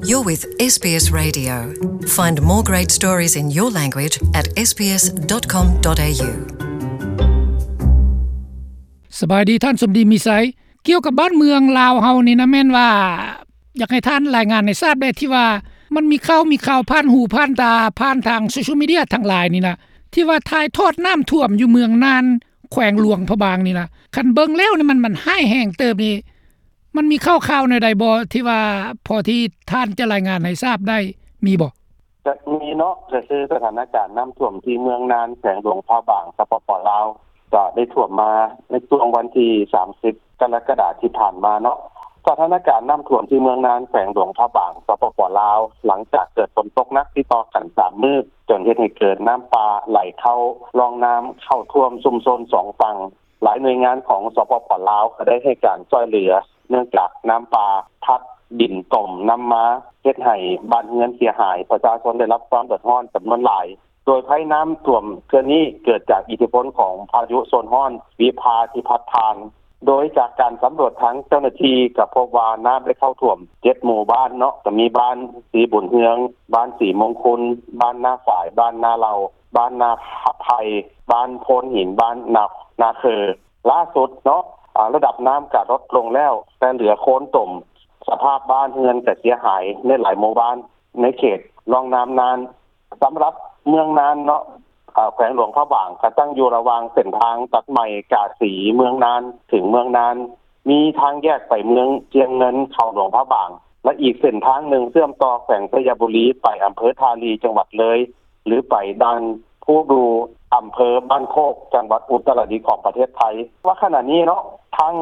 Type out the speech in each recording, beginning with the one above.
You're with S B S Radio. Find more great stories in your language at S B S dot com dot A U. ສະບາຍດີທ່ານສົມດີ ມີໄຊ. ກ່ຽວກັບບ້ານເມືອງລາວເຮົານີ້ນະ ແມ່ນວ່າຢາກໃຫ້ທ່ານລາຍງານໃຫ້ຊາບແດ່ ທີ່ວ່າມັນມີຂ່າວ ມີຂ່າວຜ່ານຫູຜ່ານຕາ ຜ່ານທາງໂຊຊຽວມີເດຍທັງຫຼາຍນີ້ນະ ທີ່ວ່າຖ່າຍທອດນ້ຳຖ້ວມຢູ່ເມືອງນານ ແຂວງຫຼວງພະບາງນີ້ນະ. ຄັນເບິ່ງແລ້ວນີ້ ມັນ ມັນຮ້າຍແຮງເຕີບນີ້ ມັນມີຂ່າວໆແນວໃດບໍ່ ທີ່ວ່າພໍທີ່ທ່ານຈະລາຍງານໃຫ້ຊາບໄດ້ ມີບໍ່? ຈະມີເນາະ ກໍຄືສະຖານະການນ້ຳຖ້ວມທີ່ເມືອງນານ ແຂວງຫຼວງພະບາງ ສປປ ລາວ ກໍໄດ້ຖ້ວມມາໃນຊ່ວງວັນທີສາມສິບ ກໍລະກະດາທີ່ຜ່ານມາເນາະ. ສະຖານະການນ້ຳຖ້ວມທີ່ເມືອງນານ ແຂວງຫຼວງພະບາງ ສປປ ລາວ ຫຼັງຈາກເກີດຝົນຕົກໜັກຕິດຕໍ່ກັນສາມມື້ ຈົນເຮັດໃຫ້ເກີດນ້ຳປ່າໄຫຼເຂົ້າຮ່ອງນ້ຳ ເຂົ້າຖ້ວມຊຸມຊົນສອງຝັ່ງ. ຫຼາຍໜ່ວຍງານຂອງ ສປປ ລາວ ກໍໄດ້ໃຫ້ການຊ່ວຍເຫຼືອ ເນື່ອງຈາກນ້ຳປ່າພັດດິນຕົມນຳມາ ເຮັດໃຫ້ບ້ານເຮືອນເສຍຫາຍ, ປະຊາຊົນໄດ້ຮັບຄວາມເດືອດຮ້ອນຈຳນວນຫຼາຍ. ໂດຍໄພນ້ຳຖ້ວມເທື່ອນີ້ເກີດຈາກອິດທິພົນຂອງພາຍຸໂຊນຮ້ອນວິພາທີ່ພັດຜ່ານ, ໂດຍຈາກການສຳຫຼວດທາງເຈົ້າໜ້າທີ່ກໍພົບວ່ານ້ຳໄດ້ເຂົ້າຖ້ວມເຈັດໝູ່ບ້ານເນາະ, ກໍມີບ້ານສີບຸນເຮືອງ, ບ້ານສີມົງຄຸນ, ບ້ານນາຝາຍ, ບ້ານນາເຫຼົ່າ, ບ້ານນາໄຜ່, ບ້ານໂພນຫີນ, ບ້ານນາ ນາເຄີ. ລ່າສຸດເນາະ ອາ ລະດັບນ້ຳກະລົດລົງແລ້ວ ແຕ່ເຫຼືອໂຄນຕົມ, ສະພາບບ້ານເຮືອນກະເສຍຫາຍໃນຫຼາຍໝູ່ບ້ານໃນເຂດຮ່ອງນ້ຳນານ. ສຳລັບເມືອງນານເນາະ ອາ ແຂວງຫຼວງພະບາງ ກະຕັ້ງຢູ່ລະຫວ່າງເສັ້ນທາງຕັດໃໝ່ກາສີເມືອງນານເຖິງເມືອງນານ, ມີທາງແຍກໄປເມືອງຊຽງເງິນເຂົ້າຫຼວງພະບາງ ແລະ ອີກເສັ້ນທາງໜຶ່ງເຊື່ອມຕໍ່ແຂວງໄຊຍະບູລີໄປອຳເພີທ່າລີ ຈັງຫວັດເລີຍ ຫຼື ໄປດ່ານພູດູ ອຳເພີບ້ານໂຄກ ຈັງຫວັດອຸດຕະລະດິດຂອງປະເທດໄທ. ວ່າຂະນະນີ້ເນາະ ທາງ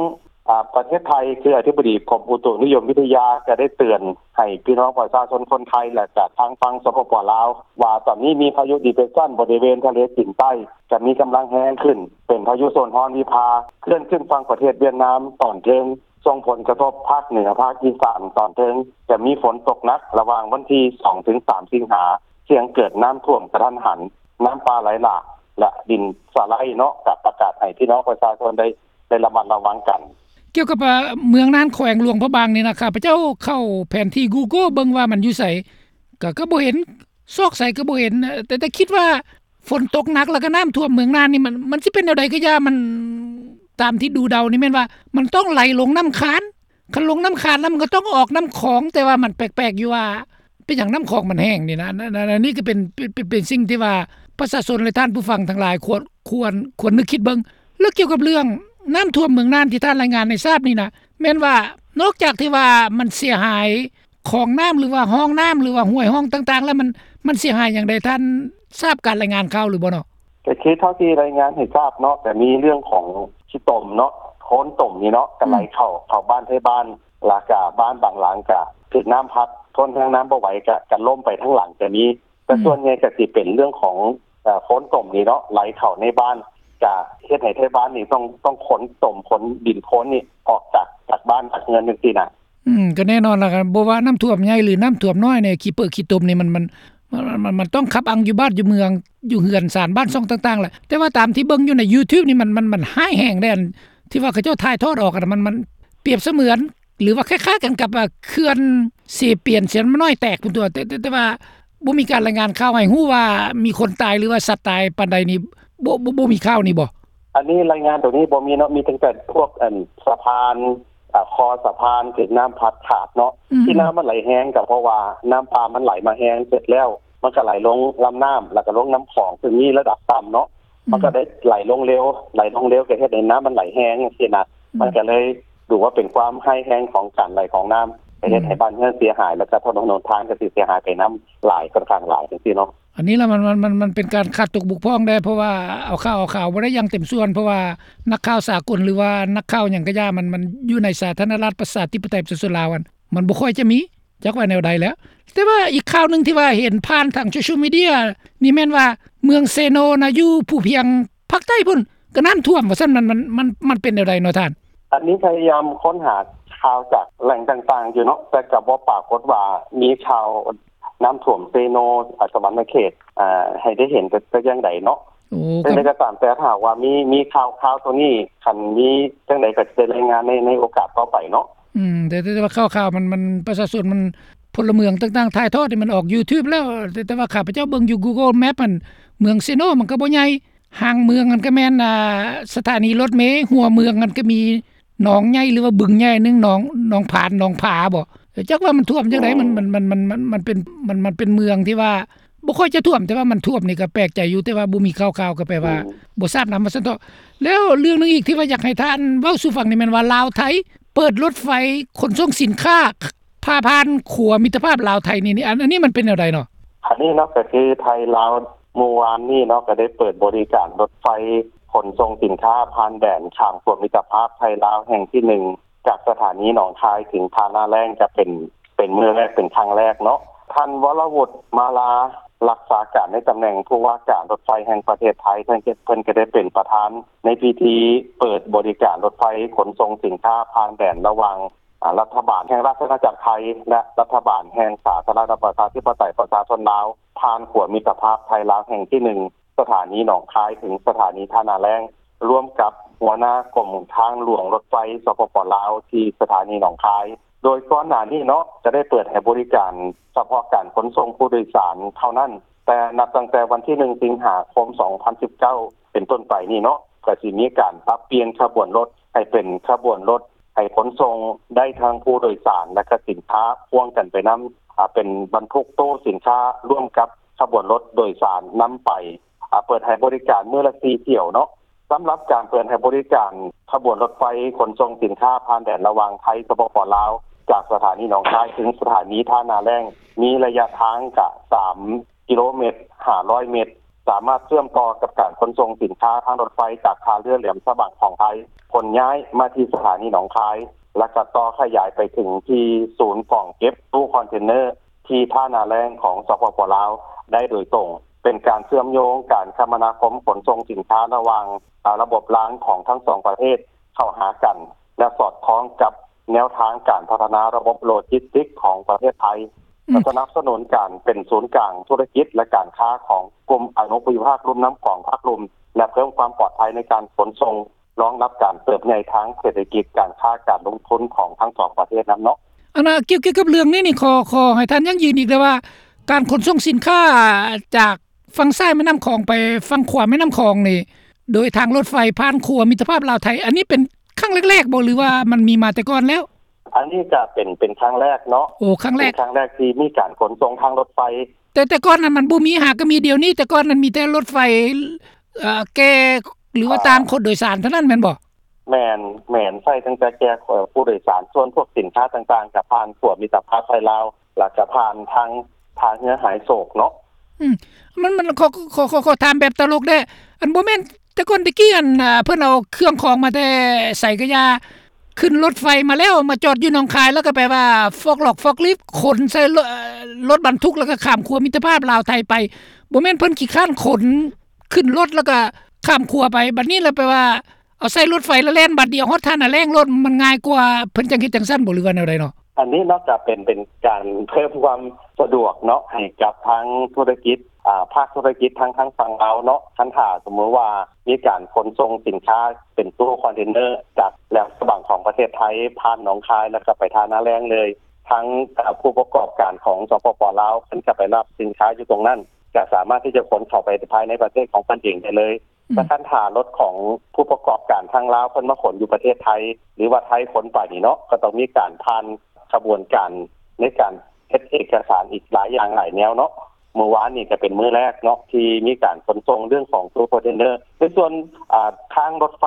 ອາ ປະເທດໄທ ຄືອະທິບໍດີກົມອຸຕຸນິຍົມວິທະຍາ ກໍໄດ້ເຕືອນໃຫ້ພີ່ນ້ອງປະຊາຊົນຄົນໄທ ແລະ ກະທາງຝັ່ງ ສປປ ລາວ ວ່າຕອນນີ້ມີພາຍຸດີເປຣສຊັນບໍລິເວນທະເລຈີນໃຕ້ ຈະມີກຳລັງແຮງຂຶ້ນ ເປັນພາຍຸໂຊນຮ້ອນວິພາ ເຄື່ອນຂຶ້ນຝັ່ງປະເທດຫວຽດນາມຕອນເທິງ, ສົ່ງຜົນກະທົບພາກເໜືອ, ພາກອີສານຕອນເທິງ, ຈະມີຝົນຕົກໜັກລະຫວ່າງວັນທີສອງເຖິງສາມສິງຫາ, ສ່ຽງເກີດນ້ຳຖ້ວມກະທັນຫັນ, ນ້ຳປ່າໄຫຼຫຼາກ ແລະ ດິນສະໄລເນາະ, ກະປະກາດໃຫ້ພີ່ນ້ອງປະຊາຊົນໄດ້ ໄດ້ລະມັດລະວັງກັນ. ກ່ຽວກັບ ເອີ ເມືອງນານ ແຂວງຫຼວງພະບາງນີ້ນະ, ຂ້າພະເຈົ້າເຂົ້າແຜນທີ່ Google ເບິ່ງວ່າມັນຢູ່ໃສ ກໍ ກໍບໍ່ເຫັນ, ຊອກໃສກໍບໍ່ເຫັນ, ແຕ່ ແຕ່ຄິດວ່າຝົນຕົກໜັກ ແລ້ວກໍນ້ຳຖ້ວມເມືອງນານນີ້ ມັນ ມັນຊິເປັນແນວໃດກໍຢ່າ, ມັນ ຕາມທີ່ດູເດົານີ້ແມ່ນວ່າມັນຕ້ອງໄຫຼລົງນ້ຳຄານ, ຄັນລົງນ້ຳຄານແລ້ວມັນກໍຕ້ອງອອກນ້ຳຂອງ, ແຕ່ວ່າມັນແປກໆຢູ່ວ່າ ເປັນຫຍັງນ້ຳຂອງມັນແຫ້ງນີ້ນະ. ອັນ ອັນ ອັນ ອັນນີ້ກໍເປັນ ເປັນ ເປັນ ເປັນສິ່ງທີ່ວ່າປະຊາຊົນ ແລະ ທ່ານຜູ້ຟັງທັງຫຼາຍຄວນ ຄວນ ຄວນນຶກຄິດເບິ່ງ. ແລ້ວກ່ຽວກັບເລື່ອງນ້ຳຖ້ວມເມືອງນານທີ່ທ່ານລາຍງານໃຫ້ຊາບນີ້ນະ ແມ່ນວ່ານອກຈາກທີ່ວ່າມັນເສຍຫາຍຂອງນ້ຳ ຫຼືວ່າຮ່ອງນ້ຳ ຫຼືວ່າຫ້ວຍຮ່ອງຕ່າງໆ ແລ້ວມັນ ມັນເສຍຫາຍຫຍັງໃດ? ທ່ານຊາບການລາຍງານຂ່າວຫຼືບໍ່ເນາະ? ກໍຄືເທົ່າທີ່ລາຍງານໃຫ້ຊາບເນາະ ກໍມີເລື່ອງຂອງຂີ້ຕົມເນາະ, ໂຄນຕົມນີ້ເນາະ ກໍໄຫຼເຂົ້າ ເຂົ້າບ້ານໄທບ້ານ, ແລ້ວກໍບ້ານບາງຫຼັງກໍຖືກນ້ຳພັດ, ທົນແຮງນ້ຳບໍ່ໄຫວ ກໍ ກໍລົ້ມໄປທັງຫຼັງກໍມີ. ແຕ່ ອືມ ສ່ວນໃຫຍ່ກໍຊິເປັນເລື່ອງຂອງ ເອີ ໂຄນຕົມນີ້ເນາະ ໄຫຼເຂົ້າໃນບ້ານ, ກະເຮັດໃຫ້ໄທບ້ານນີ້ຕ້ອງ ຕ້ອງຂົນຕົມ ຂົນດິນໂຄນນີ້ອອກຈາກ ຈາກບ້ານຈາກເຮືອນຈັ່ງຊີ້ນະ. ອືມ ກໍແນ່ນອນລະ ບໍ່ວ່ານ້ຳຖ້ວມໃຫຍ່ ຫຼື ນ້ຳຖ້ວມນ້ອຍນີ້ ຂີ້ເປິກຂີ້ຕົມນີ້ ມັນ ມັນ ມັນ ມັນ ມັນຕ້ອງຂັບອັ່ງຢູ່ບ້ານຢູ່ເມືອງ ຢູ່ເຮືອນຊານບ້ານຊ່ອງຕ່າງໆແຫຼະ. ແຕ່ວ່າຕາມທີ່ເບິ່ງຢູ່ໃນ YouTube ນີ້ ມັນ ມັນ ມັນຮ້າຍແຮງເດ້ ອັນທີ່ວ່າເຂົາເຈົ້າຖ່າຍທອດອອກຫັ້ນນະ ມັນ ມັນປຽບສະເໝືອນ ຫຼືວ່າຄ້າຍໆກັນກັບ ເອີ ເຂື່ອນເຊປຽນ ເຊປຽນນ້ອຍແຕກພຸ້ນຕົວະ. ແຕ່ ແຕ່ ແຕ່ວ່າບໍ່ມີການລາຍງານຂ່າວໃຫ້ຮູ້ວ່າມີຄົນຕາຍ ຫຼືວ່າສັດຕາຍປານໃດນີ້ ບໍ່ ບໍ່ ບໍ່ມີຂ່າວນີ້ບໍ່? ອັນນີ້ລາຍງານຕົວນີ້ບໍ່ມີເນາະ, ມີຕັ້ງແຕ່ພວກ ອັນ ສະພານ ອາ ຄໍສະພານຖືກນ້ຳພັດຂາດເນາະ. ອືມ ທີ່ນ້ຳມັນໄຫຼແຮງກໍເພາະວ່ານ້ຳປ່າມັນໄຫຼມາແຮງ ເສັດແລ້ວມັນກໍໄຫຼລົງລຳນ້ຳ ແລ້ວກໍລົງນ້ຳຂອງ ຊຶ່ງມີລະດັບຕ່ຳເນາະ. ອືມ ມັນກໍໄດ້ໄຫຼລົງເລັວ ໄຫຼລົງເລັວກໍເຮັດໃຫ້ນ້ຳມັນໄຫຼແຮງຈັ່ງຊີ້ນະ. ອືມ ມັນກໍເລີຍ ຫຼືວ່າເປັນຄວາມຮ້າຍແຮງຂອງການໄຫຼຂອງນ້ຳ ໄປເຮັດໃຫ້ ອືມ ບ້ານເຮືອນເສຍຫາຍ ແລ້ວກໍຖະໜົນຫົນທາງກໍຊິເສຍຫາຍໄປນຳຫຼາຍ ຄ່ອນຂ້າງຫຼາຍຈັ່ງຊີ້ເນາະ. ອັນນີ້ລະ ມັນ ມັນ ມັນ ມັນເປັນການຂາດຕົກບົກຜ່ອງແດ່ ເພາະວ່າເອົາຂ່າວ ເອົາຂ່າວບໍ່ໄດ້ຢ່າງເຕັມສ່ວນ ເພາະວ່ານັກຂ່າວສາກົນ ຫຼືວ່ານັກຂ່າວຫຍັງກໍຢ່າ ມັນ ມັນຢູ່ໃນສາທາລະນະລັດ ປະຊາທິປະໄຕ ປະຊາຊົນລາວ ມັນ ມັນບໍ່ຄ່ອຍຈະມີ ຈັກວ່າແນວໃດແລ້ວ. ແຕ່ວ່າອີກຂ່າວໜຶ່ງທີ່ວ່າເຫັນຜ່ານທາງໂຊຊຽວມີເດຍນີ້ ແມ່ນວ່າເມືອງເຊໂນນະ ຢູ່ພູພຽງພາກໃຕ້ພຸ້ນ ກໍນ້ຳຖ້ວມວ່າຊັ້ນ ມັນ ມັນ ມັນ ມັນເປັນແນວໃດເນາະທ່ານ? ອັນນີ້ພະຍາຍາມຄົ້ນຫາຂ່າວຈາກແຫຼ່ງຕ່າງໆຢູ່ເນາະ, ແຕ່ກໍບໍ່ປາກົດວ່າມີຂ່າວນ້ຳຖ້ວມເຊໂນ ອາ ສະຫວັນນະເຂດ ອາ ໃຫ້ໄດ້ເຫັນແຕ່ ແຕ່ຢ່າງໃດເນາະ. ໂອ້ ຈັ່ງໃດກໍຕາມແຕ່ ຖ້າຫາກວ່າມີ ມີຂ່າວ ຂ່າວຕົວນີ້ ຄັນມີຈັ່ງໃດກໍຈະໄດ້ລາຍງານໃນ ໃນໂອກາດຕໍ່ໄປເນາະ. ອືມ ແຕ່ ແຕ່ ແຕ່ວ່າຂ່າວ ຂ່າວມັນ ມັນ ປະຊາຊົນມັນ ພົນລະເມືອງຕ່າງໆຖ່າຍທອດໃຫ້ມັນອອກ YouTube ແລ້ວ ແຕ່ ແຕ່ວ່າຂ້າພະເຈົ້າເບິ່ງຢູ່ Google Map ຫັ້ນ ເມືອງເຊໂນມັນກໍບໍ່ໃຫຍ່ ຫາງເມືອງຫັ້ນກໍແມ່ນ ອ່າ ສະຖານີລົດເມ ຫົວເມືອງຫັ້ນກໍມີໜອງໃຫຍ່ ຫຼືວ່າບຶງໃຫຍ່ໜຶ່ງ ໜອງ ໜອງຜານ ໜອງຜາບໍ ຈັກວ່າມັນຖ້ວມຈັ່ງໃດ ມັນ ມັນ ມັນ ມັນ ມັນ ມັນເປັນ ມັນ ມັນເປັນເມືອງທີ່ວ່າ ບໍ່ຄ່ອຍຈະຖ້ວມ ແຕ່ວ່າມັນຖ້ວມນີ້ກໍແປກໃຈຢູ່ ແຕ່ວ່າບໍ່ມີຂ່າວໆ ກໍແປວ່າ ອືມ ບໍ່ຊາບນຳວ່າຊັ້ນເຖາະ. ແລ້ວເລື່ອງໜຶ່ງອີກທີ່ວ່າຢາກໃຫ້ທ່ານເວົ້າສູ່ຟັງນີ້ແມ່ນວ່າ ລາວໄທເປີດລົດໄຟຂົນສົ່ງສິນຄ້າ ຜ່າຜ່ານຂົວມິດຕະພາບລາວໄທນີ້ ອັນ ອັນນີ້ມັນເປັນແນວໃດເນາະ? ອັນນີ້ເນາະ ກໍຄືໄທລາວມື້ວານນີ້ເນາະ ກໍໄດ້ເປີດບໍລິການລົດໄຟຂົນສົ່ງສິນຄ້າຜ່ານແດນຂ້າມຂົວມິດຕະພາບໄທລາວແຫ່ງທີໜຶ່ງ ຈາກສະຖານີໜອງຄາຍເຖິງທ່ານາແລ້ງ ຈະເປັນ ເປັນມື້ແລກ ເປັນຄັ້ງແລກເນາະ. ທ່ານ ວໍລະວຸດ ມາລາ ລັກສາການໃນຕຳແໜ່ງຜູ້ວ່າການລົດໄຟແຫ່ງປະເທດໄທ ເພິ່ນ ເພິ່ນກໍໄດ້ເປັນປະທານໃນພິທີເປີດບໍລິການລົດໄຟຂົນສົ່ງສິນຄ້າຜ່ານແດນລະຫວ່າງ ອາ ລັດຖະບານແຫ່ງລາຊະອານາຈັກໄທ ແລະ ລັດຖະບານແຫ່ງສາທາລະນະລັດປະຊາທິປະໄຕປະຊາຊົນລາວ ຜ່ານຂົວມິດຕະພາບໄທລາວແຫ່ງທີໜຶ່ງ ສະຖານີໜອງຄາຍເຖິງສະຖານີທ່ານາແລ້ງ ຮ່ວມກັບຫົວໜ້າກົມທາງຫຼວງລົດໄຟ ສປປ ລາວ ທີ່ສະຖານີໜອງຄາຍ. ໂດຍກ່ອນໜ້ານີ້ເນາະ ຈະໄດ້ເປີດໃຫ້ບໍລິການສະເພາະການຂົນສົ່ງຜູ້ໂດຍສານເທົ່ານັ້ນ, ແຕ່ນັບຕັ້ງແຕ່ວັນທີໜຶ່ງ ສິງຫາຄົມ ສອງພັນສິບເກົ້າ ເປັນຕົ້ນໄປນີ້ເນາະ ກໍຊິມີການປັບປ່ຽນຂະບວນລົດໃຫ້ເປັນຂະບວນລົດໃຫ້ຂົນສົ່ງໄດ້ທັງຜູ້ໂດຍສານ ແລະ ກະສິນຄ້າພ່ວງກັນໄປນຳ ອາ ເປັນບັນທຸກຕູ້ສິນຄ້າຮ່ວມກັບຂະບວນລົດໂດຍສານນຳໄປ ອາ ເປີດໃຫ້ບໍລິການມື້ລະສີ່ຖ້ຽວເນາະ. ສຳລັບການເປີດໃຫ້ບໍລິການຂະບວນລົດໄຟຂົນສົ່ງສິນຄ້າຜ່ານແດນລະຫວ່າງໄທ ສປປ ລາວ ຈາກສະຖານີໜອງຄາຍເຖິງສະຖານີທ່ານາແລ້ງ ມີໄລຍະທາງກະສາມ ກິໂລເມດ ຫ້າຮ້ອຍເມດ ສາມາດເຊື່ອມຕໍ່ກັບການຂົນສົ່ງສິນຄ້າທາງລົດໄຟຈາກທ່າເຮືອແຫຼມສະບາງຂອງໄທ ຂົນຍ້າຍມາທີ່ສະຖານີໜອງຄາຍ ແລະ ກໍຕໍ່ຂະຫຍາຍໄປເຖິງທີ່ສູນກອງເກັບຕູ້ຄອນເທນເນີທີ່ທ່ານາແລ້ງຂອງ ສປປ ລາວ ໄດ້ໂດຍຕົງ, ເປັນການເຊື່ອມໂຍງການຄະມະນາຄົມຂົນສົ່ງສິນຄ້າລະຫວ່າງ ອາ ລະບົບລາງຂອງທັງສອງປະເທດເຂົ້າຫາກັນ ແລະ ສອດຄ່ອງກັບແນວທາງການພັດທະນາລະບົບໂລຈິສຕິກຂອງປະເທດໄທ ອືມ ສະໜັບສະໜູນການເປັນສູນກາງທຸລະກິດ ແລະ ການຄ້າຂອງກຸ່ມອະນຸພູມິພາກລຸ່ມນ້ຳຂອງພາກລຸ່ມ ແລະ ເພີ່ມຄວາມປອດໄພໃນການຂົນສົ່ງ ລອງຮັບການເຕີບໃຫຍ່ທາງເສດຖະກິດ, ການຄ້າ, ການລົງທຶນຂອງທັງສອງປະເທດນຳເນາະ. ອັນນ່າ ກ່ຽວ ກ່ຽວກັບເລື່ອງນີ້ນີ້ ຂໍ ຂໍໃຫ້ທ່ານຢັ້ງຢືນອີກແດ່ວ່າ ການຂົນສົ່ງສິນຄ້າຈາກຝັ່ງຊ້າຍແມ່ນ້ຳຂອງໄປຝັ່ງຂວາແມ່ນ້ຳຂອງນີ້ ໂດຍທາງລົດໄຟຜ່ານຂົວມິດຕະພາບລາວໄທ ອັນນີ້ເປັນຄັ້ງແລກໆບໍ ຫຼືວ່າມັນມີມາແຕ່ກ່ອນແລ້ວ? ອັນນີ້ກະເປັນ ເປັນຄັ້ງແລກເນາະ. ໂອ້ ຄັ້ງແລກ ເປັນຄັ້ງແລກທີ່ມີການຂົນສົ່ງທາງລົດໄຟ. ແຕ່ ແຕ່ກ່ອນນັ້ນມັນບໍ່ມີ ຫາກະມີດຽວນີ້, ແຕ່ກ່ອນນັ້ນມີແຕ່ລົດໄຟ ເອີ ແກ່ ຫຼືວ່າ ອ່າ ຕ່າງຄົນໂດຍສານເທົ່ານັ້ນແມ່ນບໍ່? ແມ່ນ ແມ່ນ ໃຊ້ຕັ້ງແຕ່ແກ່ ເອີ ຜູ້ໂດຍສານ, ສ່ວນພວກສິນຄ້າຕ່າງໆ ກະຜ່ານຂົວມິດຕະພາບໄທລາວ ແລ້ວກະຜ່ານທາງທ່າເຮືອຫາຍໂສກເນາະ. ອືມ ມັນ ມັນ ຂໍ ຂໍ ຂໍ ຂໍຖາມແບບຕະຫຼົກແດ່ ອັນ ບໍ່ແມ່ນແຕ່ກ່ອນແຕ່ກີ້ ອັນ ອ່າ ເພິ່ນເອົາເຄື່ອງຂອງມາແຕ່ໃສກະຢ່າ ຂຶ້ນລົດໄຟມາແລ້ວ ມາຈອດຢູ່ໜອງຄາຍ ແລ້ວກໍແປວ່າຟອກຫຼອກຟອກລິບ ຂົນໃສ່ລົດ ເອີ ລົດບັນທຸກ ແລ້ວກໍຂ້າມຂົວມິດຕະພາບລາວໄທໄປ. ບໍ່ແມ່ນເພິ່ນຂີ້ຄ້ານຂົນຂຶ້ນລົດ ແລ້ວກໍຂ້າມຂົວໄປ ບັດນີ້ລະແປວ່າ ເອົາໃສ່ລົດໄຟລະແລ່ນບາດດຽວຮອດທ່ານາແລ້ງໂລດ ມັນງ່າຍກວ່າ ເພິ່ນຈັ່ງເຮັດຈັ່ງຊັ້ນບໍ ຫຼືວ່າແນວໃດເນາະ? ອັນນີ້ເນາະ ກະເປັນ ເປັນການເພີ່ມຄວາມສະດວກເນາະ ໃຫ້ກັບທາງທຸລະກິດ ອ່າ ພາກທຸລະກິດທາງ ທາງຝັ່ງລາວເນາະ. ຄັນຖ້າສົມມຸດວ່າມີການຂົນສົ່ງສິນຄ້າເປັນຕູ້ຄອນເທນເນີຈາກແຫຼມສະບາງຂອງປະເທດໄທ ຜ່ານໜອງຄາຍ ແລ້ວກໍໄປທ່ານາແລ້ງເລີຍ, ທາງ ເອີ ຜູ້ປະກອບການຂອງ ສປປ ລາວ ເພິ່ນກໍໄປຮັບສິນຄ້າຢູ່ຕົງນັ້ນ ກະສາມາດທີ່ຈະຂົນເຂົ້າໄປພາຍໃນປະເທດຂອງເພິ່ນເອງໄດ້ເລີຍ. ອືມ ແຕ່ຄັນຖ້າລົດຂອງຜູ້ປະກອບການທາງລາວເພິ່ນມາຂົນຢູ່ປະເທດໄທ ຫຼືວ່າໄທຂົນໄປນີ້ເນາະ ກໍຕ້ອງມີການຜ່ານຂະບວນການໃນການເຮັດເອກະສານອີກຫຼາຍຢ່າງຫຼາຍແນວເນາະ. ມື້ວານນີ້ກໍເປັນມື້ແລກເນາະ ທີ່ມີການຂົນສົ່ງເລື່ອງຂອງຕູ້ຄອນເທນເນີ. ໃນສ່ວນ ອາ ທາງລົດໄຟ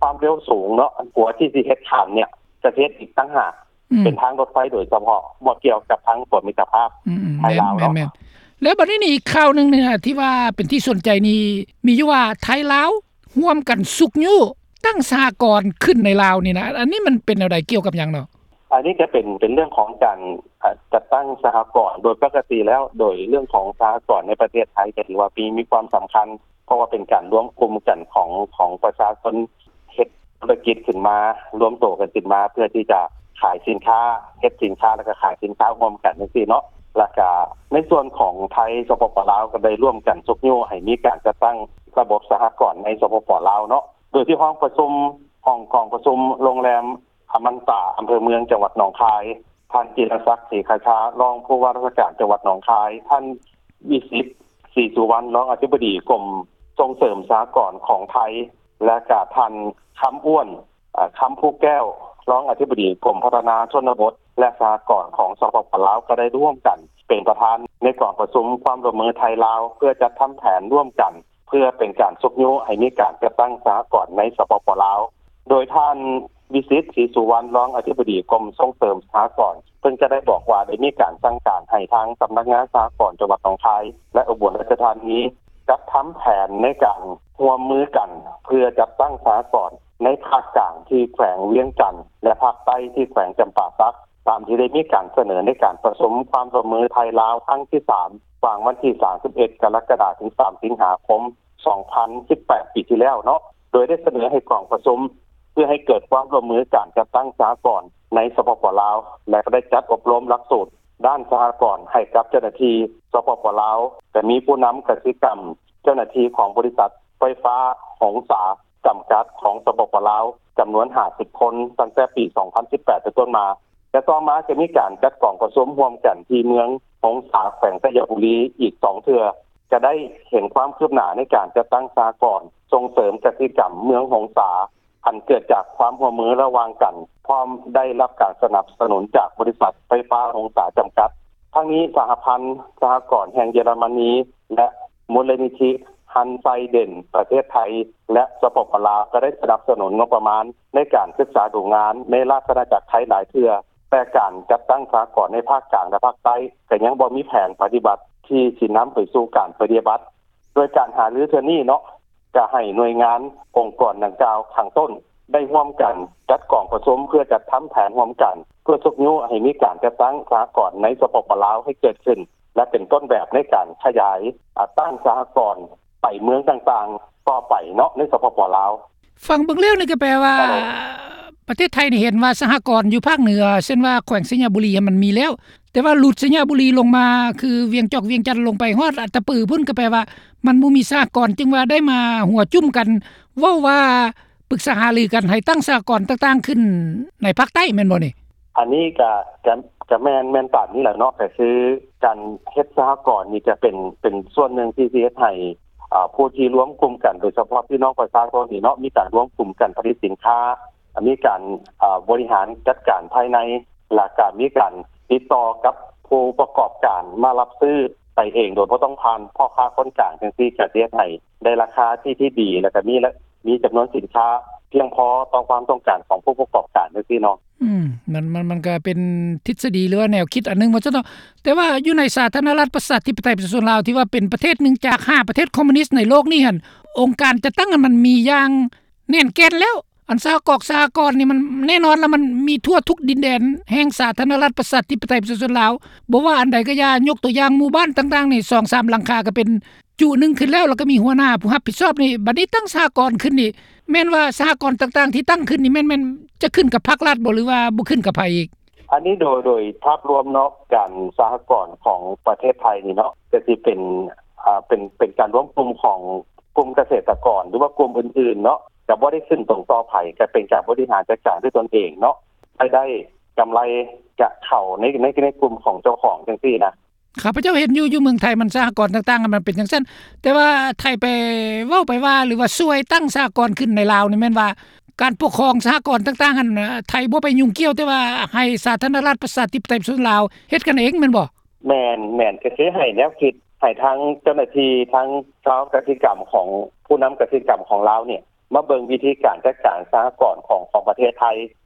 ຄວາມເລັວສູງເນາະ ອັນຂົວທີ່ຊິເຮັດຂ້າມເນ່ຍ ຈະເຮັດອີກຕ່າງຫາກ ອືມ ເປັນທາງລົດໄຟໂດຍສະເພາະ ບໍ່ກ່ຽວກັບທາງຂົວມິດຕະພາບ ອືມໆ ໄທລາວເນາະ. ແມ່ນໆ ແລ້ວບັດນີ້ນີ້ ອີກຂ່າວໜຶ່ງນີ້ນະ ທີ່ວ່າເປັນທີ່ສົນໃຈນີ້ ມີຢູ່ວ່າໄທລາວຮ່ວມກັນຊຸກຍູ້ຕັ້ງສະຫະກອນຂຶ້ນໃນລາວນີ້ນະ ອັນນີ້ມັນເປັນແນວໃດ ກ່ຽວກັບຫຍັງເນາະ? ອັນນີ້ກໍເປັນ ເປັນເລື່ອງຂອງການ ອາ ຈັດຕັ້ງສະຫະກອນ. ໂດຍປົກກະຕິແລ້ວ ໂດຍເລື່ອງຂອງສະຫະກອນໃນປະເທດໄທ ກໍຖືວ່າມີ ມີຄວາມສຳຄັນ ເພາະວ່າເປັນການລວມກຸ່ມກັນຂອງ ຂອງປະຊາຊົນເຮັດທຸລະກິດຂຶ້ນມາ ລວມໂຕກັນຂຶ້ນມາ ເພື່ອທີ່ຈະຂາຍສິນຄ້າ ເຮັດສິນຄ້າ ແລ້ວກໍຂາຍສິນຄ້າຮ່ວມກັນຈັ່ງຊີ້ເນາະ. ແລ້ວກໍໃນສ່ວນຂອງໄທ ສປປ ລາວ ກໍໄດ້ຮ່ວມກັນຊຸກຍູ້ໃຫ້ມີການຈັດຕັ້ງລະບົບສະຫະກອນໃນ ສປປ ລາວ ເນາະ ໂດຍທີ່ຫ້ອງປະຊຸມ ຫ້ອງກອງປະຊຸມໂຮງແຮມອະມັນຕາ ອຳເພີເມືອງ ຈັງຫວັດໜອງຄາຍ ທ່ານ ຈິລະສັກ ສີຄາຊາ ຮອງຜູ້ວ່າລາຊະການຈັງຫວັດໜອງຄາຍ, ທ່ານ ວິສິດ ສີສຸວັນ ຮອງອະທິບໍດີກົມສົ່ງເສີມສະຫະກອນຂອງໄທ ແລະກະທ່ານ ຄຳອ້ວນ ຄຳພູແກ້ວ ຮອງອະທິບໍດີກົມພັດທະນາຊົນນະບົດ ແລະສະຫະກອນຂອງ ສປປ ລາວ ກໍໄດ້ຮ່ວມກັນເປັນປະທານໃນກອງປະຊຸມຄວາມຮ່ວມມືໄທ-ລາວ ເພື່ອຈັດທຳແຜນຮ່ວມກັນ ເພື່ອເປັນການຊຸກຍູ້ໃຫ້ມີການຈັດຕັ້ງສະຫະກອນໃນ ສປປ ລາວ. ໂດຍທ່ານ ວິສິດ ສີສຸວັນ ຮອງອະທິບໍດີກົມສົ່ງເສີມສະຫະກອນ ເພິ່ນກໍໄດ້ບອກວ່າ ໄດ້ມີການສັ່ງການໃຫ້ທາງສຳນັກງານສະຫະກອນຈັງຫວັດໜອງຄາຍ ແລະ ອຸບົນລາຊະທານີ ຈັດທຳແຜນໃນການຮ່ວມມືກັນ ເພື່ອຈັດຕັ້ງສະຫະກອນໃນພາກກາງທີ່ແຂວງວຽງຈັນ ແລະ ພາກໃຕ້ທີ່ແຂວງຈຳປາສັກ ຕາມທີ່ໄດ້ມີການສະເໜີໃນການປະຊຸມຄວາມຮ່ວມມືໄທ-ລາວຄັ້ງທີສາມ ຫວ່າງວັນທີສາມສິບເອັດ ກໍລະກະດາ ເຖິງສາມສິງຫາຄົມ ສອງພັນສິບແປດ ປີທີ່ແລ້ວເນາະ, ໂດຍໄດ້ສະເໜີໃຫ້ກອງປະຊຸມ ເພື່ອໃຫ້ເກີດຄວາມຮ່ວມມືການຈັດຕັ້ງສະຫະກອນໃນ ສປປ ລາວ ແລະ ກໍໄດ້ຈັດອົບຮົມຫຼັກສູດດ້ານສະຫະກອນໃຫ້ກັບເຈົ້າໜ້າທີ່ ສປປ ລາວ, ກໍມີຜູ້ນຳກະສິກຳ, ເຈົ້າໜ້າທີ່ຂອງບໍລິສັດໄຟຟ້າຫົງສາ ຈຳກັດ ຂອງ ສປປ ລາວ ຈຳນວນຫ້າສິບຄົນ ຕັ້ງແຕ່ປີສອງພັນສິບແປດເປັນຕົ້ນມາ ແລະ ຕໍ່ມາຈະມີການຈັດກອງປະຊຸມຮ່ວມກັນທີ່ເມືອງຫົງສາ ແຂວງໄຊຍະບູລີ ອີກສອງເທື່ອ ຈະໄດ້ເຫັນຄວາມຄືບໜ້າໃນການຈັດຕັ້ງສະຫະກອນສົ່ງເສີມກະສິກຳເມືອງຫົງສາ ອັນເກີດຈາກຄວາມຮ່ວມມືລະຫວ່າງກັນ ພ້ອມໄດ້ຮັບການສະໜັບສະໜູນຈາກບໍລິສັດໄຟຟ້າຫົງສາ ຈຳກັດ. ທັງນີ້ ສະຫະພັນສະຫະກອນແຫ່ງເຢຍລະມະນີ ແລະ ມູນນິທິ ຮັນໄຊເດນ ປະເທດໄທ ແລະ ສປປ ລາວ ກໍໄດ້ສະໜັບສະໜູນງົບປະມານໃນການສຶກສາດູງານໃນລາຊະອານາຈັກໄທຫຼາຍເທື່ອ, ແຕ່ການຈັດຕັ້ງສະຫະກອນໃນພາກກາງ ແລະ ພາກໃຕ້ ກໍຍັງບໍ່ມີແຜນປະຕິບັດທີ່ຊິນຳໄປສູ່ການປະຕິບັດ. ໂດຍການຫາລືເທື່ອນີ້ເນາະ ຈະໃຫ້ໜ່ວຍງານອົງກອນດັ່ງກ່າວຂ້າງຕົ້ນ ໄດ້ຮ່ວມກັນຈັດກອງປະຊຸມ ເພື່ອຈັດທຳແຜນຮ່ວມກັນ ເພື່ອຊຸກຍູ້ໃຫ້ມີການຈັດຕັ້ງສະຫະກອນໃນ ສປປ ລາວ ໃຫ້ເກີດຂຶ້ນ ແລະ ເປັນຕົ້ນແບບໃນການຂະຫຍາຍ ອາ ຕັ້ງສະຫະກອນໄປເມືອງຕ່າງໆຕໍ່ໄປເນາະ ໃນ ສປປ ລາວ. ຟັງເບິ່ງແລ້ວນີ້ກໍແປວ່າ ປະເທດໄທນີ້ເຫັນວ່າສະຫະກອນຢູ່ພາກເໜືອ ເຊັ່ນວ່າແຂວງໄຊຍະບູລີຫັ້ນມັນມີແລ້ວ, ແຕ່ວ່າຫຼຸດໄຊຍະບູລີລົງມາ ຄືວຽງຈອກ ວຽງຈັນ ລົງໄປຮອດອັດຕະປືພຸ້ນ ກໍແປວ່າມັນບໍ່ມີສະຫະກອນ ຈຶ່ງວ່າໄດ້ມາຫົວຈຸ້ມກັນ ເວົ້າວ່າປຶກສາຫາລືກັນໃຫ້ຕັ້ງສະຫະກອນຕ່າງໆຂຶ້ນໃນພາກໃຕ້ ແມ່ນບໍ່ນີ້? ອັນນີ້ກະ ກະ ກະແມ່ນ ແມ່ນຕາມນີ້ແຫຼະເນາະ, ກະຄືການເຮັດສະຫະກອນນີ້ຈະເປັນ ເປັນສ່ວນໜຶ່ງທີ່ຊິເຮັດໃຫ້ ອາ ຜູ້ທີ່ລວມກຸ່ມກັນ ໂດຍສະເພາະພີ່ນ້ອງປະຊາຊົນນີ້ເນາະ ມີການລວມກຸ່ມກັນຜະລິດສິນຄ້າ, ມີການ ອາ ບໍລິຫານຈັດການພາຍໃນ ແລະ ກະມີການຕິດຕໍ່ກັບຜູ້ປະກອບການມາຮັບຊື້ໄປເອງ ໂດຍບໍ່ຕ້ອງຜ່ານພໍ່ຄ້າຄົນກາງຈັ່ງຊີ້ ກະຊິເຮັດໃຫ້ໄດ້ລາຄາທີ່ ທີ່ດີ ແລະ ກະມີ ມີຈຳນວນສິນຄ້າພຽງພໍຕໍ່ຄວາມຕ້ອງການຂອງຜູ້ປະກອບການຈັ່ງຊີ້ເນາະ. ອືມ ມັນ ມັນ ມັນກະເປັນທິດສະດີ ຫຼືວ່າແນວຄິດອັນໜຶ່ງວ່າຊັ້ນເນາະ, ແຕ່ວ່າຢູ່ໃນສາທາລະນະລັດປະຊາທິປະໄຕປະຊາຊົນລາວ ທີ່ວ່າເປັນປະເທດໜຶ່ງຈາກຫ້າປະເທດຄອມມູນິດໃນໂລກນີ້ຫັ້ນ ອົງການຈັດຕັ້ງມັນມີຢ່າງແໜ້ນແກ່ນແລ້ວ, ອັນສະຫະກອນ ສະຫະກອນນີ້ມັນແນ່ນອນລະ ມັນມີທົ່ວທຸກດິນແດນແຫ່ງສາທາລະນະລັດປະຊາທິປະໄຕປະຊາຊົນລາວ, ບໍ່ວ່າອັນໃດກໍຢ່າ, ຍົກຕົວຢ່າງໝູ່ບ້ານຕ່າງໆນີ້ ສອງສາມຫຼັງຄາກໍເປັນ ຈຸໜຶ່ງຂຶ້ນແລ້ວ ແລ້ວກໍມີຫົວໜ້າຜູ້ຮັບຜິດຊອບນີ້, ບັດນີ້ຕັ້ງສະຫະກອນຂຶ້ນນີ້ ແມ່ນວ່າສະຫະກອນຕ່າງໆທີ່ຕັ້ງຂຶ້ນນີ້ ແມ່ນ ແມ່ນຈະຂຶ້ນກັບພາກລັດບໍ່ ຫຼືວ່າບໍ່ຂຶ້ນກັບໃຜອີກ? ອັນນີ້ໂດຍ ໂດຍພາບລວມເນາະ ການສະຫະກອນຂອງປະເທດໄທນີ້ເນາະ ກໍຊິເປັນ ອາ ເປັນ ເປັນການລວມກຸ່ມຂອງກຸ່ມກະເສດຕະກອນ ຫຼືວ່າກຸ່ມອື່ນໆເນາະ, ຈະບໍ່ໄດ້ຂຶ້ນຕົງຕໍ່ໃຜ, ກໍເປັນການບໍລິຫານຈັດການດ້ວຍຕົນເອງເນາະ, ລາຍໄດ້ກຳໄລຈະເຂົ້າໃນ ໃນ ໃນກຸ່ມຂອງເຈົ້າຂອງຈັ່ງຊີ້ນະ. ຂ້າພະເຈົ້າເຫັນຢູ່ ຢູ່ເມືອງໄທມັນສະຫະກອນຕ່າງໆ ມັນເປັນຈັ່ງຊັ້ນ, ແຕ່ວ່າໄທໄປເວົ້າໄປວ່າ ຫຼືວ່າຊ່ວຍຕັ້ງສະຫະກອນຂຶ້ນໃນລາວນີ້ ແມ່ນວ່າການປົກຄອງສະຫະກອນຕ່າງໆຫັ້ນ ໄທບໍ່ໄປຫຍຸ້ງກ່ຽວ, ແຕ່ວ່າໃຫ້ສາທາລະນະລັດປະຊາທິປະໄຕປະຊາຊົນລາວເຮັດກັນເອງແມ່ນບໍ່? ແມ່ນ, ແມ່ນ, ກໍຄືໃຫ້ແນວຄິດ ໃຫ້ທາງເຈົ້າໜ້າທີ່ ທາງຊາວກະສິກຳຂອງ ຜູ້ນຳກະສິກຳຂອງລາວນີ້ ມາເບິ່ງວິທີການຈັດການສະຫະກອນຂອງ ຂອງປະເທດໄທ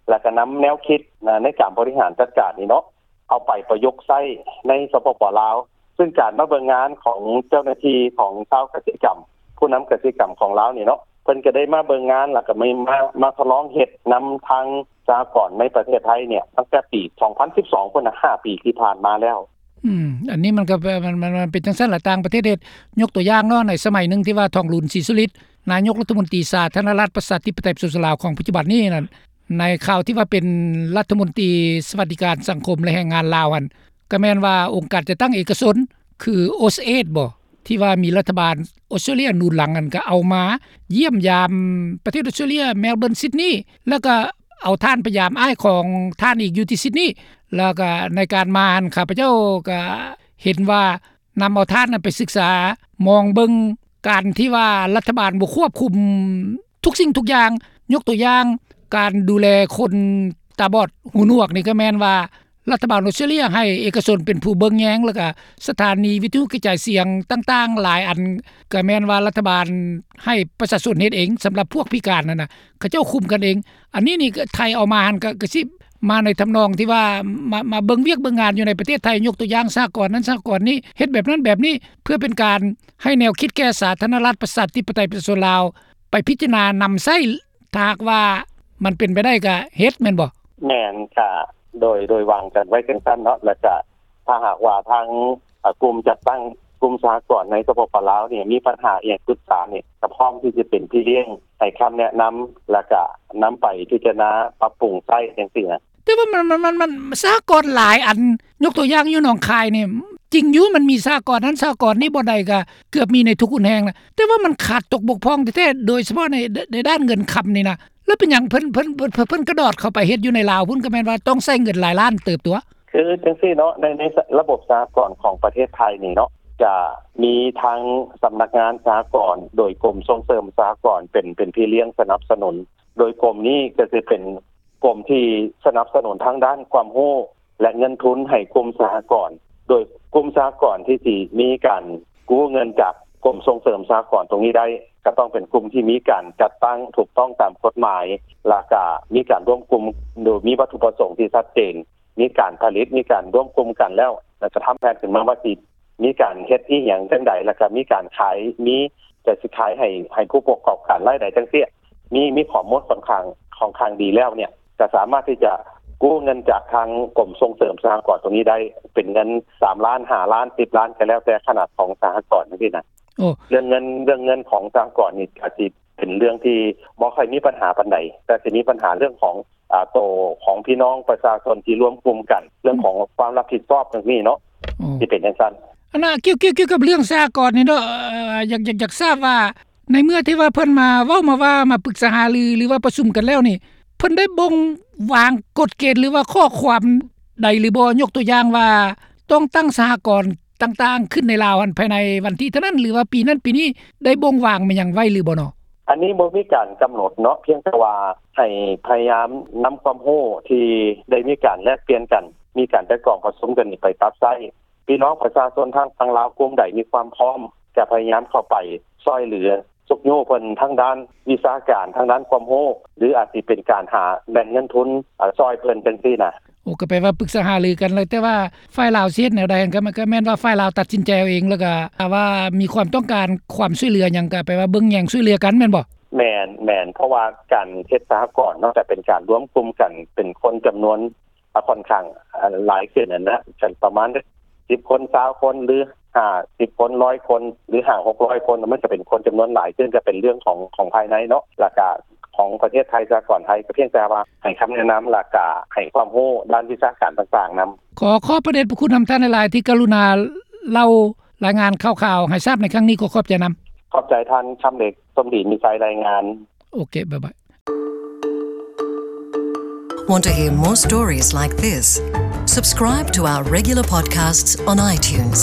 ແລ້ວກໍນຳແນວຄິດໃນການບໍລິຫານຈັດການນີ້ເນາະ ເອົາໄປປະຍຸກໃຊ້ໃນ ສປປ ລາວ, ຊຶ່ງການມາເບິ່ງງານຂອງເຈົ້າໜ້າທີ່ຂອງຊາວກະສິກຳ ຜູ້ນຳກະສິກຳຂອງລາວນີ້ເນາະ ເພິ່ນກໍໄດ້ມາເບິ່ງງານ ແລ້ວກໍມາ ມາ ມາທົດລອງເຮັດນຳທາງສະຫະກອນໃນປະເທດໄທນີ້ ຕັ້ງແຕ່ປີສອງພັນສິບສອງພຸ້ນນະ ຫ້າປີທີ່ຜ່ານມາແລ້ວ. ອືມ ອັນນີ້ມັນກໍ ມັນ ມັນ ມັນເປັນຈັ່ງຊັ້ນລະ ຕ່າງປະເທດເຮັດ, ຍົກຕົວຢ່າງເນາະ ໃນສະໄໝໜຶ່ງທີ່ວ່າ ທອງລຸນ ສີສຸລິດ ນາຍົກລັດຖະມົນຕີສາທາລະນະລັດປະຊາທິປະໄຕປະຊາຊົນລາວຂອງປັດຈຸບັນນີ້ນັ້ນ ໃນຄາວທີ່ວ່າເປັນລັດຖະມົນຕີສະຫວັດດີການສັງຄົມ ແລະ ແຮງງານລາວຫັ້ນ ກໍແມ່ນວ່າອົງການຈັດຕັ້ງເອກະຊົນ ຄື ໂອສເອດ ບໍ ທີ່ວ່າມີລັດຖະບານອົດສະຕຣາເລຍໜູນຫຼັງນັ້ນ ກໍເອົາມາຢ້ຽມຢາມປະເທດອົດສະຕຣາເລຍ ແມລເບີນ ຊິດນີ ແລ້ວກໍ ເອົາທ່ານໄປຢາມອ້າຍຂອງທ່ານອີກຢູ່ທີ່ຊິດນີ ແລ້ວກໍໃນການມາຫັ້ນ ຂ້າພະເຈົ້າກໍເຫັນວ່ານຳເອົາທ່ານນັ້ນໄປສຶກສາ ມອງເບິ່ງການທີ່ວ່າລັດຖະບານບໍ່ຄວບຄຸມທຸກສິ່ງທຸກຢ່າງ. ຍົກຕົວຢ່າງ ການດູແລຄົນຕາບອດຫູໜວກນີ້ ກໍແມ່ນວ່າ ລັດຖະບານອົດສະຕຣາເລຍໃຫ້ເອກະຊົນເປັນຜູ້ເບິ່ງແຍງ ແລ້ວກະສະຖານີວິທະຍຸກະຈາຍສຽງຕ່າງໆຫຼາຍອັນ ກະແມ່ນວ່າລັດຖະບານໃຫ້ປະຊາຊົນເຮັດເອງ ສຳລັບພວກພິການຫັ້ນນະ ເຂົາເຈົ້າຄຸມກັນເອງ. ອັນນີ້ນີ້ກະໄທເອົາມາຫັ້ນ ກະ ກະຊິມາໃນທຳນອງທີ່ວ່າ ມາ ມາເບິ່ງວຽກເບິ່ງງານຢູ່ໃນປະເທດໄທ ຍົກຕົວຢ່າງສະຫະກອນນັ້ນສະຫະກອນນີ້ ເຮັດແບບນັ້ນແບບນີ້ ເພື່ອເປັນການໃຫ້ແນວຄິດແກ່ສາທາລະນະລັດ ປະຊາທິປະໄຕ ປະຊາຊົນລາວ ໄປພິຈາລະນານຳໃຊ້ ຖ້າຫາກວ່າມັນເປັນໄປໄດ້ກະເຮັດແມ່ນບໍ່? ແມ່ນ ກະໂດຍ ໂດຍວາງກັນໄວ້ຈັ່ງຊັ້ນເນາະ ແລ້ວກະຖ້າຫາກວ່າທາງ ອາ ກຸ່ມຈັດຕັ້ງກຸ່ມສະຫະກອນໃນ ສປປ ລາວ ນີ້ ມີບັນຫາອີ່ຫຍັງປຶກສານີ້ ກະພ້ອມທີ່ຈະເປັນພີ່ລ້ຽງໃຫ້ຄຳແນະນຳ ແລ້ວກະນຳໄປພິຈາລະນາປັບປຸງໃຊ້ຈັ່ງຊີ້ນະ. ແຕ່ວ່າມັນ ມັນ ມັນ ມັນ ສະຫະກອນຫຼາຍອັນ ຍົກຕົວຢ່າງຢູ່ໜອງຄາຍນີ້ ຈິງຢູ່ ມັນມີສະຫະກອນນັ້ນສະຫະກອນນີ້ ບ່ອນໃດກະເກືອບມີໃນທຸກຮຸນແຮງນະ ແຕ່ວ່າມັນຂາດຕົກບົກຜ່ອງແທ້ໆ ໂດຍສະເພາະໃນ ໃນດ້ານເງິນຄຳນີ້ນະ ແລ້ວເປັນຫຍັງເພິ່ນ ເພິ່ນ ເພິ່ນ ເພິ່ນກະດອດເຂົ້າໄປເຮັດຢູ່ໃນລາວພຸ້ນ ກະແມ່ນວ່າຕ້ອງໃຊ້ເງິນຫຼາຍລ້ານເຕີບຕົວະ. ຄືຈັ່ງຊີ້ເນາະ ໃນ ໃນລະບົບສະຫະກອນຂອງປະເທດໄທນີ້ເນາະ ຈະມີທັງສຳນັກງານສະຫະກອນ ໂດຍກົມສົ່ງເສີມສະຫະກອນເປັນ ເປັນພີ່ລ້ຽງສະໜັບສະໜູນ ໂດຍກົມນີ້ກະຊິເປັນ ກົມທີ່ສະໜັບສະໜູນທາງດ້ານຄວາມຮູ້ ແລະ ເງິນທຶນໃຫ້ກຸ່ມສະຫະກອນ ໂດຍກຸ່ມສະຫະກອນທີ່ຊິມີການກູ້ເງິນຈາກກົມສົ່ງເສີມສະຫະກອນຕົງນີ້ໄດ້ ກະຕ້ອງເປັນກຸ່ມທີ່ມີການຈັດຕັ້ງຖືກຕ້ອງຕາມກົດໝາຍ ແລ້ວກະມີການລວມກຸ່ມໂດຍມີວັດຖຸປະສົງທີ່ຊັດເຈນ ມີການຜະລິດ ມີການລວມກຸ່ມກັນແລ້ວ ແລ້ວກະທຳແຜນຂຶ້ນມາວ່າຊິ ມີການເຮັດອີ່ຫຍັງຈັ່ງໃດ ແລ້ວກະມີການຂາຍ ມີ ຈະຊິຂາຍໃຫ້ ໃຫ້ຜູ້ປະກອບການລາຍໄດ້ຈັ່ງຊີ້ ມີ ມີຂໍ້ມູນຂ້ອນຂ້າງ ຂ້ອນຂ້າງດີແລ້ວເນ່ຍ ກະສາມາດທີ່ຈະກູ້ເງິນຈາກທາງກົມສົ່ງເສີມສະຫະກອນຕົງນີ້ໄດ້ ເປັນເງິນສາມລ້ານ ຫ້າລ້ານ ສິບລ້ານ ກະແລ້ວແຕ່ຂະໜາດຂອງສະຫະກອນຈັ່ງຊີ້ນະ. ໂອ້ ເລື່ອງເງິນ ເລື່ອງເງິນຂອງສະຫະກອນນີ້ກະຊິເປັນເລື່ອງທີ່ບໍ່ຄ່ອຍມີບັນຫາປານໃດ ແຕ່ຊິມີບັນຫາເລື່ອງຂອງ ອາ ໂຕຂອງພີ່ນ້ອງປະຊາຊົນທີ່ລວມກຸ່ມກັນ ເລື່ອງຂອງຄວາມຮັບຜິດຊອບຈັ່ງຊີ້ເນາະ ໂອ້ ຊິເປັນຈັ່ງຊັ້ນ. ອັນນ່າ ກ່ຽວ ກ່ຽວ ກ່ຽວກັບເລື່ອງສະຫະກອນນີ້ເນາະ ເອີ ຢາກ ຢາກ ຢາກຊາບວ່າ ໃນເມື່ອທີ່ວ່າເພິ່ນມາເວົ້າມາວ່າ ມາປຶກສາຫາລື ຫຼືວ່າປະຊຸມກັນແລ້ວນີ້ ເພິ່ນໄດ້ບົ່ງວາງກົດເກນ ຫຼືວ່າຂໍ້ຄວາມໃດຫຼືບໍ່? ຍົກຕົວຢ່າງວ່າ ຕ້ອງຕັ້ງສະຫະກອນຕ່າງໆຂຶ້ນໃນລາວຫັ້ນ ພາຍໃນວັນທີເທົ່ານັ້ນ ຫຼືວ່າປີນັ້ນປີນີ້ ໄດ້ບົ່ງວາງແມ່ນຫຍັງໄວ້ຫຼືບໍ່ເນາະ? ອັນນີ້ບໍ່ມີການກຳນົດເນາະ ພຽງແຕ່ວ່າໃຫ້ພະຍາຍາມນຳຄວາມຮູ້ທີ່ໄດ້ມີການແລກປ່ຽນກັນ ມີການໄຕ່ຕອງປະຊຸມກັນນີ້ໄປປັບໃຊ້. ພີ່ນ້ອງປະຊາຊົນທາງຝັ່ງລາວກຸ່ມໃດມີຄວາມພ້ອມ ຈະພະຍາຍາມເຂົ້າໄປຊ່ອຍເຫຼືອຊຸກຍູ້ເພິ່ນທາງດ້ານວິຊາການ ທາງດ້ານຄວາມຮູ້ ຫຼືອາດຊິເປັນການຫາແຫຼ່ງເງິນທຶນ ອາ ຊ່ອຍເພິ່ນຈັ່ງຊີ້ນະ. ໂອ້ ກະແປວ່າປຶກສາຫາລືກັນແລ້ວ ແຕ່ວ່າຝ່າຍລາວຊິເຮັດແນວໃດຫັ້ນ ກະ ກະແມ່ນວ່າຝ່າຍລາວຕັດສິນໃຈເອົາເອງ ແລ້ວກະຖ້າວ່າມີຄວາມຕ້ອງການຄວາມຊ່ວຍເຫຼືອຫຍັງ ກະແປວ່າເບິ່ງແຍງຊ່ວຍເຫຼືອກັນແມ່ນບໍ່? ແມ່ນ ແມ່ນ ເພາະວ່າການເຮັດສະຫະກອນເນາະ ກະເປັນການລວມກຸ່ມກັນເປັນຄົນຈຳນວນ ອາ ຂ້ອນຂ້າງ ອາ ຫຼາຍຂຶ້ນຫັ້ນນະ ປະມານສິບຄົນ ຊາວຄົນ ຫຼື ຫ້າສິບຄົນ ຮ້ອຍຄົນ ຫຼື ຫ້າຫົກຮ້ອຍຄົນ ມັນກະເປັນຄົນຈຳນວນຫຼາຍຂຶ້ນ ກະເປັນເລື່ອງຂອງ ຂອງພາຍໃນເນາະ ແລ້ວກະຂອງປະເທດໄທ ສະຫະກອນໄທ ກະພຽງແຕ່ວ່າໃຫ້ຄຳແນະນຳ ແລ້ວກະໃຫ້ຄວາມຮູ້ດ້ານວິຊາການຕ່າງໆນຳ. ຂໍຂອບພະເດດພະຄຸນນຳທ່ານຫຼາຍໆ ທີ່ກະລຸນາເລົ່າລາຍງານຂ່າວໆໃຫ້ຊາບໃນຄັ້ງນີ້ ຂໍຂອບໃຈນຳ. ຂອບໃຈທ່ານຄຳເລັກ ສົມດີມີໄຊ ລາຍງານ. ໂອເຄ ບາຍບາຍ. Want to hear more stories like this? Subscribe to our regular podcasts on iTunes.